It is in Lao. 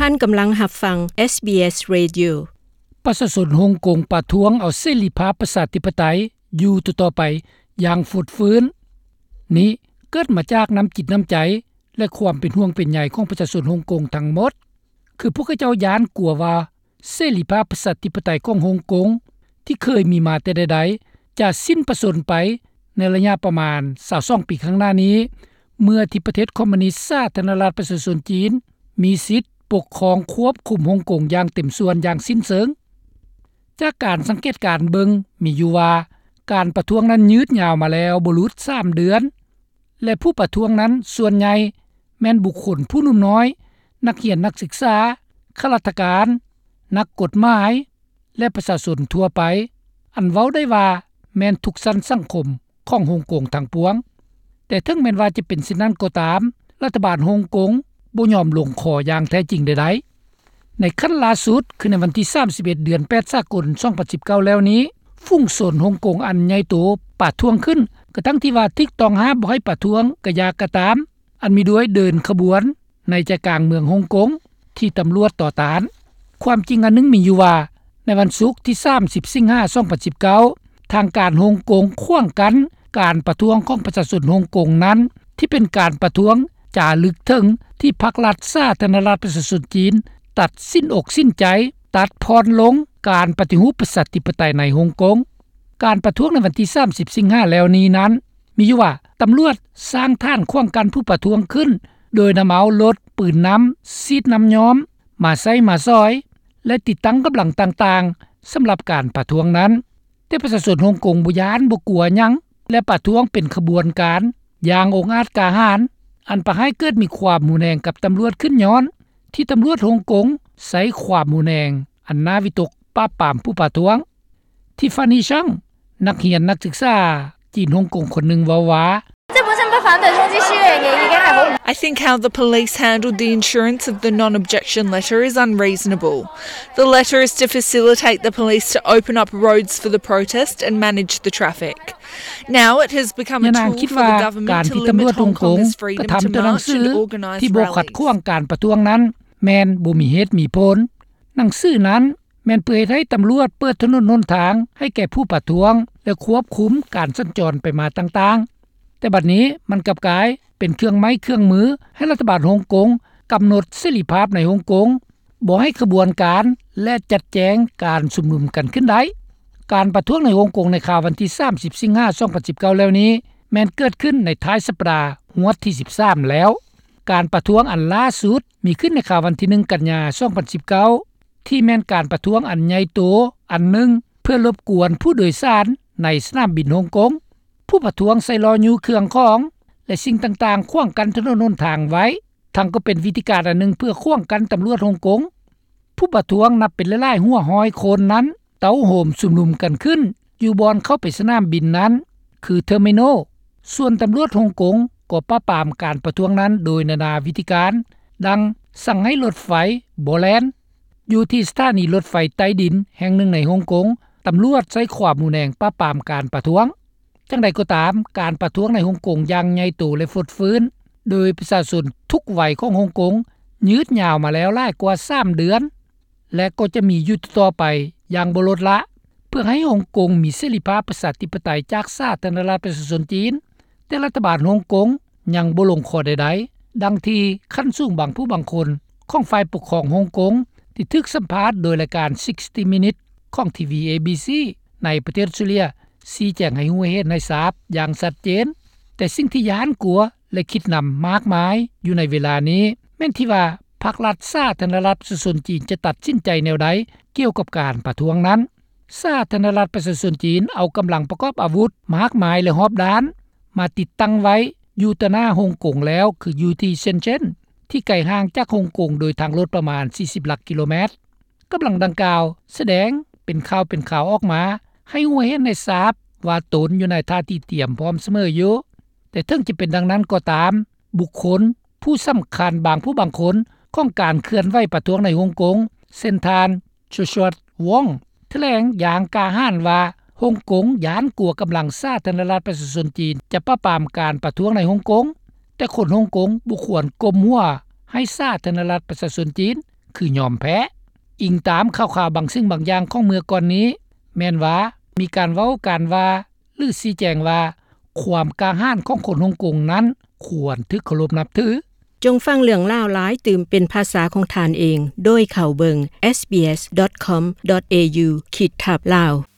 ທ່ານກຳລັງຮັບຟັງ ເອສບີເອສ Radio. ປະຊາຊົນຮົງກົງປະທ້ວງເອົາເສລີພາບປະຊາທິປະໄຕຢູ່ຕໍ່ໆໄປຢ່າງຟົດຟື້ນ. ນີ້ເກີດມາຈາກນ້ຳຈິດນ້ຳໃຈ ແລະ ຄວາມເປັນຫ່ວງເປັນໃຍຂອງປະຊາຊົນຮົງກົງທັງໝົດ. ຄືພວກເຂົາເຈົ້າຢ້ານກົວວ່າ ເສລີພາບປະຊາທິປະໄຕຂອງຮົງກົງ ທີ່ເຄີຍມີມາແຕ່ໃດໆ ຈະສິ້ນປະຊົນໄປໃນໄລຍະປະມານຊາວສອງປີຂ້າງໜ້ານີ້ ເມື່ອທີ່ປະເທດຄອມມູນິດສາທາລະນະລັດປະຊາຊົນຈີນ ມີສິດປົກຄອງຄວບຄຸມຮົງກົງຢ່າງເຕັມສ່ວນຢ່າງສິ້ນເຊີງ. ຈາກການສັງເກດການເບິ່ງ ມີຢູ່ວ່າການປະທ້ວງນັ້ນຍືດຍາວມາແລ້ວບໍ່ຫຼຸດສາມເດືອນ ແລະ ຜູ້ປະທ້ວງນັ້ນສ່ວນໃຫຍ່ແມ່ນບຸກຄົນຜູ້ໜຸ່ມນ້ອຍ, ນັກຮຽນນັກສຶກສາ, ຂ້າລາຊະການ, ນັກກົດໝາຍ ແລະ ປະຊາຊົນທົ່ວໄປ ອັນເວົ້າໄດ້ວ່າແມ່ນທຸກຊັ້ນສັງຄົມຂອງຮົງກົງທັງປວງ. ແຕ່ເຖິງແມ່ນວ່າຈະເປັນເຊັ່ນນັ້ນກໍຕາມ, ລັດຖະບານຮົງກົງບໍ່ຍອມລົງຂໍ້ຢ່າງແທ້ຈິງໃດໆ. ໃນຂັ້ນລ່າສຸດ ຄືໃນວັນທີສາມສິບເອັດ ເດືອນແປດ ສາກົນ ສອງພັນສິບເກົ້າແລ້ວນີ້, ຝູງຊົນຮົງກົງອັນໃຫຍ່ໂຕປະທ້ວງຂຶ້ນ ກະທັ່ງທີ່ວ່າຖືກຕ້ອງຫ້າມບໍ່ໃຫ້ປະທ້ວງກະຢ່າກະຕາມ, ອັນມີດ້ວຍເດີນຂະບວນໃນໃຈກາງເມືອງຮົງກົງ ທີ່ຕຳຫຼວດຕໍ່ຕ້ານ. ຄວາມຈິງອັນໜຶ່ງມີຢູ່ວ່າ ໃນວັນສຸກທີສາມສິບ ສິງຫາ ສອງພັນສິບເກົ້າ ທາງການຮົງກົງຂວາງກັ້ນການປະທ້ວງຂອງປະຊາຊົນຮົງກົງນັ້ນ ທີ່ເປັນການປະທ້ວງຈາລຶກເຖິງທີ່ພັກລັດສາທາລະນະລັດປະຊາຊົນຈີນ ຕັດສິນອົກສິນໃຈ ຕັດຜ່ອນລົງການປະຕິຮູບປະຊາທິປະໄຕໃນຮົງກົງ. ການປະທ້ວງໃນວັນທີສາມສິບ ສິງຫາແລ້ວນີ້ນັ້ນ ມີຢູ່ວ່າຕຳຫຼວດສ້າງຖານຂວາງກັ້ນຜູ້ປະທ້ວງຂຶ້ນ ໂດຍນຳເອົາລົດປືນນ້ຳ, ສີດນ້ຳຍ້ອມ ມາໃຊ້ມາສອຍ ແລະ ຕິດຕັ້ງກຳລັງຕ່າງໆ ສຳລັບການປະທ້ວງນັ້ນ. ແຕ່ປະຊາຊົນຮົງກົງບໍ່ຢ້ານບໍ່ກົວຫຍັງ ແລະ ປະທ້ວງເປັນຂະບວນການຢ່າງອົງອາດກ້າຫານ, ອັນປະໃຫ້ເກີດມີຄວາມຮຸນແຮງກັບຕຳຫຼວດຂຶ້ນຍ້ອນທີ່ຕຳຫຼວດຮົງກົງໃຊ້ຄວາມຮຸນແຮງອັນໜ້າວິຕົກປາບປາມຜູ້ປະທ້ວງ. ທິຟານີ ຊັງ ນັກຮຽນນັກສຶກສາຈີນຮົງກົງຄົນໜຶ່ງເວົ້າວ່າ I think how the police handled the issuance of the non-objection letter is unreasonable. The letter is to facilitate the police to open up roads for the protest and manage the traffic. Now it has become a tool for the government to limit Hong Kongers' freedom to march and organise rallies. ທີ່ບໍ່ຂັດຂວາງການປະທ້ວງນັ້ນ ແມ່ນບໍ່ມີເຫດມີຜົນ. ໜັງສືນັ້ນແມ່ນເພື່ອເຮັດໃຫ້ຕຳຫຼວດເປີດຖະໜົນຫົນທາງໃຫ້ແກ່ຜູ້ປະທ້ວງ ແລະ ຄວບຄຸມການສັນຈອນໄປມາຕ່າງໆ. ແຕ່ບັດນີ້ມັນກັບກາຍເປັນເຄື່ອງໄມ້ເຄື່ອງມືໃຫ້ລັດຖະບານຮົງກົງກຳນົດເສລີພາບໃນຮົງກົງ, ບໍ່ໃຫ້ຂະບວນການ ແລະ ຈັດແຈງການຊຸມນຸມກັນຂຶ້ນໄດ້. ການປະທ້ວງໃນຮົງກົງໃນຄາວວັນທີສາມສິບ ສິງຫາ ສອງພັນສິບເກົ້າແລ້ວນີ້ ແມ່ນເກີດຂຶ້ນໃນທ້າຍສັບປະດາງວດທີສິບສາມແລ້ວ. ການປະທ້ວງອັນລ່າສຸດມີຂຶ້ນໃນຄາວວັນທີໜຶ່ງ ກັນຍາ ສອງພັນສິບເກົ້າ ທີ່ແມ່ນການປະທ້ວງອັນໃຫຍ່ໂຕອັນໜຶ່ງ ເພື່ອລົບກວນຜູ້ໂດຍສານໃນສະໜາມບິນຮົງກົງ. ຜູ້ປະທ້ວງໃຊ້ລໍ້ຍູ້ເຄື່ອງຂອງ ແລະ ສິ່ງຕ່າງໆຂວາງກັ້ນຖະໜົນຫົນທາງໄວ້, ທັງກໍເປັນວິທີການອັນໜຶ່ງເພື່ອຂວາງກັ້ນຕຳຫຼວດຮົງກົງ. ຜູ້ປະທ້ວງນັບເປັນຫຼາຍໆຫົວຮ້ອຍຄົນນັ້ນ ເຕົ້າໂຮມຊຸມນຸມກັນຂຶ້ນຢູ່ບ່ອນເຂົ້າໄປສະໜາມບິນນັ້ນ ຄື Terminal. ສ່ວນຕຳຫຼວດຮົງກົງກໍປາບປາມການປະທ້ວງນັ້ນໂດຍນານາວິທີການ, ດັ່ງສັ່ງໃຫ້ລົດໄຟບໍ່ແລ່ນ. ຢູ່ທີ່ສະຖານີລົດໄຟໃຕ້ດິນແຫ່ງໜຶ່ງໃນຮົງກົງ, ຕຳຫຼວດໃຊ້ຄວາມຮຸນແຮງປາບປາມການປະທ້ວງ. ຈັ່ງໃດກໍຕາມ, ການປະທ້ວງໃນຮົງກົງຢ່າງໃຫຍ່ໂຕ ແລະ ຟົດຟື້ນ ໂດຍປະຊາຊົນທຸກໄວຂອງຮົງກົງ ຍືດຍາວມາແລ້ວຫຼາຍກວ່າສາມເດືອນ ແລະ ກໍຈະມີຢູ່ຕໍ່ໆໄປຢ່າງບໍ່ລົດລະ ເພື່ອໃຫ້ຮົງກົງມີເສລີພາບປະຊາທິປະໄຕຈາກສາທາລະນະລັດປະຊາຊົນຈີນ. ແຕ່ລັດຖະບານຮົງກົງຍັງບໍ່ລົງຂໍ້ໃດໆ, ດັ່ງທີ່ຂັ້ນສູງບາງຜູ້ບາງຄົນຂອງຝ່າຍປົກຄອງຮົງກົງ ທີ່ຖືກສຳພາດໂດຍລາຍການ sixty Minutes ຂອງ ທີວີ ເອບີຊີ ໃນປະເທດອົດສະຕຣາເລຍ ຊີ້ແຈງໃຫ້ຮູ້ໃຫ້ເຫັນໃຫ້ຊາບຢ່າງຊັດເຈນ. ແຕ່ສິ່ງທີ່ຢ້ານກົວ ແລະ ຄິດນຳມາກມາຍຢູ່ໃນເວລານີ້ ແມ່ນທີ່ວ່າພັກລັດສາທາລະນະລັດປະຊາຊົນຈີນຈະຕັດສິນໃຈແນວໃດກ່ຽວກັບການປະທ້ວງນັ້ນ. ສາທາລະນະລັດປະຊາຊົນຈີນເອົາກຳລັງປະກອບອາວຸດມາກມາຍ ແລະ ຮອບດ້ານ ມາຕິດຕັ້ງໄວ້ຢູ່ຕໍ່ໜ້າຮົງກົງແລ້ວ ຄືຢູ່ທີ່ເຊັນເຈັນ ທີ່ໄກຫ່າງຈາກຮົງກົງໂດຍທາງລົດປະມານສີ່ສິບຫຼັກກິໂລແມັດ. ກຳລັງດັ່ງກ່າວສະແດງເປັນຂ່າວເປັນຄາວອອກມາ ໃຫ້ຮູ້ໃຫ້ເຫັນໃຫ້ຊາບວ່າຕົນຢູ່ໃນທ່າທີຕຽມພ້ອມສະເໝີຢູ່. ແຕ່ເຖິງຈະເປັນດັ່ງນັ້ນກໍຕາມ, ບຸກຄົນຜູ້ສຳຄັນບາງຜູ້ບາງຄົນຂອງການເຄື່ອນໄຫວປະທ້ວງໃນຮົງກົງ ເຊັ່ນທ່ານ ໂຈຊວັດ ວອງ ຖະແຫຼງຢ່າງກ້າຫານວ່າ ຮົງກົງຢ້ານກົວກຳລັງສາທາລະນະລັດປະຊາຊົນຈີນຈະປາບປາມການປະທ້ວງໃນຮົງກົງ, ແຕ່ຄົນຮົງກົງບໍ່ຄວນກົ້ມຫົວໃຫ້ສາທາລະນະລັດປະຊາຊົນຈີນ ຄືຍອມແພ້. ອີງຕາມຂ່າວໆບາງສິ່ງບາງຢ່າງຂອງເມື່ອກ່ອນນີ້ ແມ່ນວ່າມີການເວົ້າການວ່າ ຫຼືຊີ້ແຈງວ່າ ຄວາມກ້າຫານຂອງຄົນຮົງກົງນັ້ນຄວນຖືກເຄົາລົບນັບຖື. ຈົ່ງຟັງເລື່ອງລາວຫຼາຍຕື່ມເປັນພາສາຂອງທ່ານເອງ ໂດຍເຂົ້າເບິ່ງ SBS.com.au ຂີດທັບ Lao.